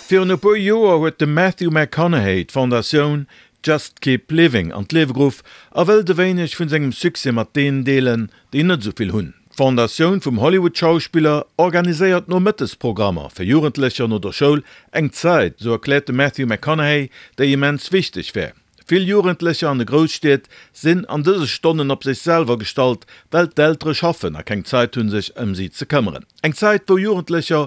Virun e puer Joer huet de Matthew McConaughey d'Fondatioun Just Keep Living an d'Liewe geruff a wëllt e wéineg vun sengem Succès mat deenen deelen, déi net esou vill hunn. D'Fondatioun vum Hollywood-Schauspiller organiséiert Nomëttesprogrammer fir Jugendlecher no der Schoul, eng Zäit, esou erkläert de Matthew McConaughey, déi immens wichteg wär. Vill Jugendlecher an de Grousstied sinn an dëse Stonnen op sech selwer gestallt, well d'Eltere schaffen a keng Zait hunn sech ëm si ze këmmeren. Eng Zäit wou Jugendlecher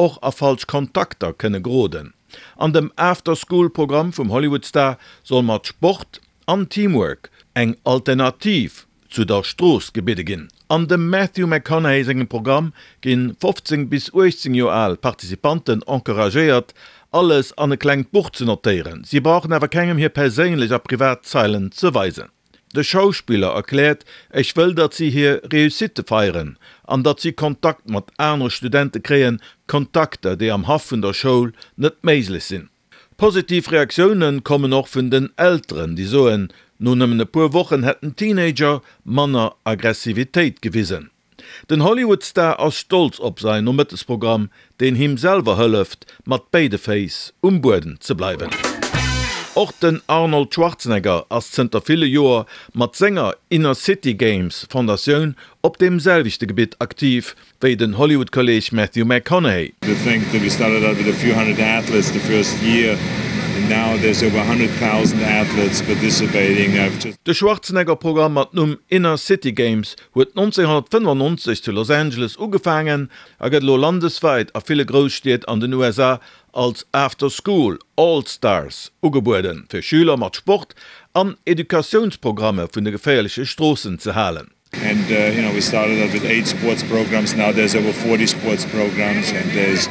och a falsch Kontakter kënne geroden. An dem After School Programm vum Hollywood-Star soll mat Sport an Teamwork eng Alternativ zu der Strooss gebidde ginn. An dem Matthew McConaughey sengem Programm ginn 15 bis 18 Joer al Participanten encouragéiert, alles an e klengt Buch ze notéieren. Si brauchen awer kengem hir perséinlech a privat Zeilen ze weisen. De Schauspiller erkläert, Ech wëll, datt si hir Réussitte feieren an datt si Kontakt mat anere Studente kréien, Kontakter, déi am Haff vun der Schoul net méiglech sinn. Positiv Reaktioune kommen och vun den Elteren, déi soen, no nëmmen e puer Wochen hätten d'Teenager manner Aggressivitéit gewisen. Den Hollywood-Star ass stolz op säin Nomëttesprogramm, deen him selwer hëlleft, mat béide Féiss um Buedem ze bleiwen. Och den Arnold Schwarzenegger ass zënter ville Joer mat senger Inner City Games Fondatioun op deem selwechte Gebitt aktiv, wéi den Hollywood-Kolleeg Matthew McConaughey. To think that we started out with a few hundred athletes the first year and now there's over 100,000 athletes participating. I've just. De Schwarzenegger-Programm mat Numm Inner City Games huet 1995 zu Los Angeles ugefaangen a gëtt elo landeswäit a ville Grousstied an den USA als After School All Stars ugebueden, fir Schüler mat Sport an Educatiounsprogramme vun de geféierleche Stroossen ze halen. And you know we started out with 8 sports programs, now there's over 40 sports programs and there's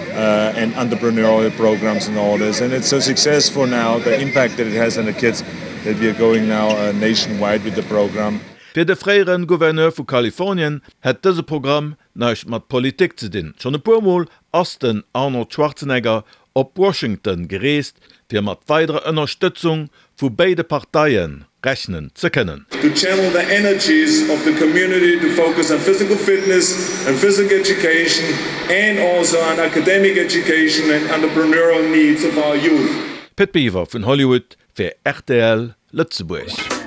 and entrepreneurial programs and all this and it's so successful now the impact that it has on the kids that we are going now nationwide with the program. Fir de fréiere Gouverneur vu Kalifornien hätt dëse Programm näischt mat Politik ze dinn. Schonn e puer Mol ass den Arnold Schwarzenegger op Washington gereest, fir mat weiderer Ënnerstëtzung vu béide Parteie rechnen ze kënnen. To channel the energies of the community to focus on physical fitness and physical education and also on academic education and entrepreneurial needs of our youth. Pit Biwer vun Hollywood fir rtl Lëtzebuerg.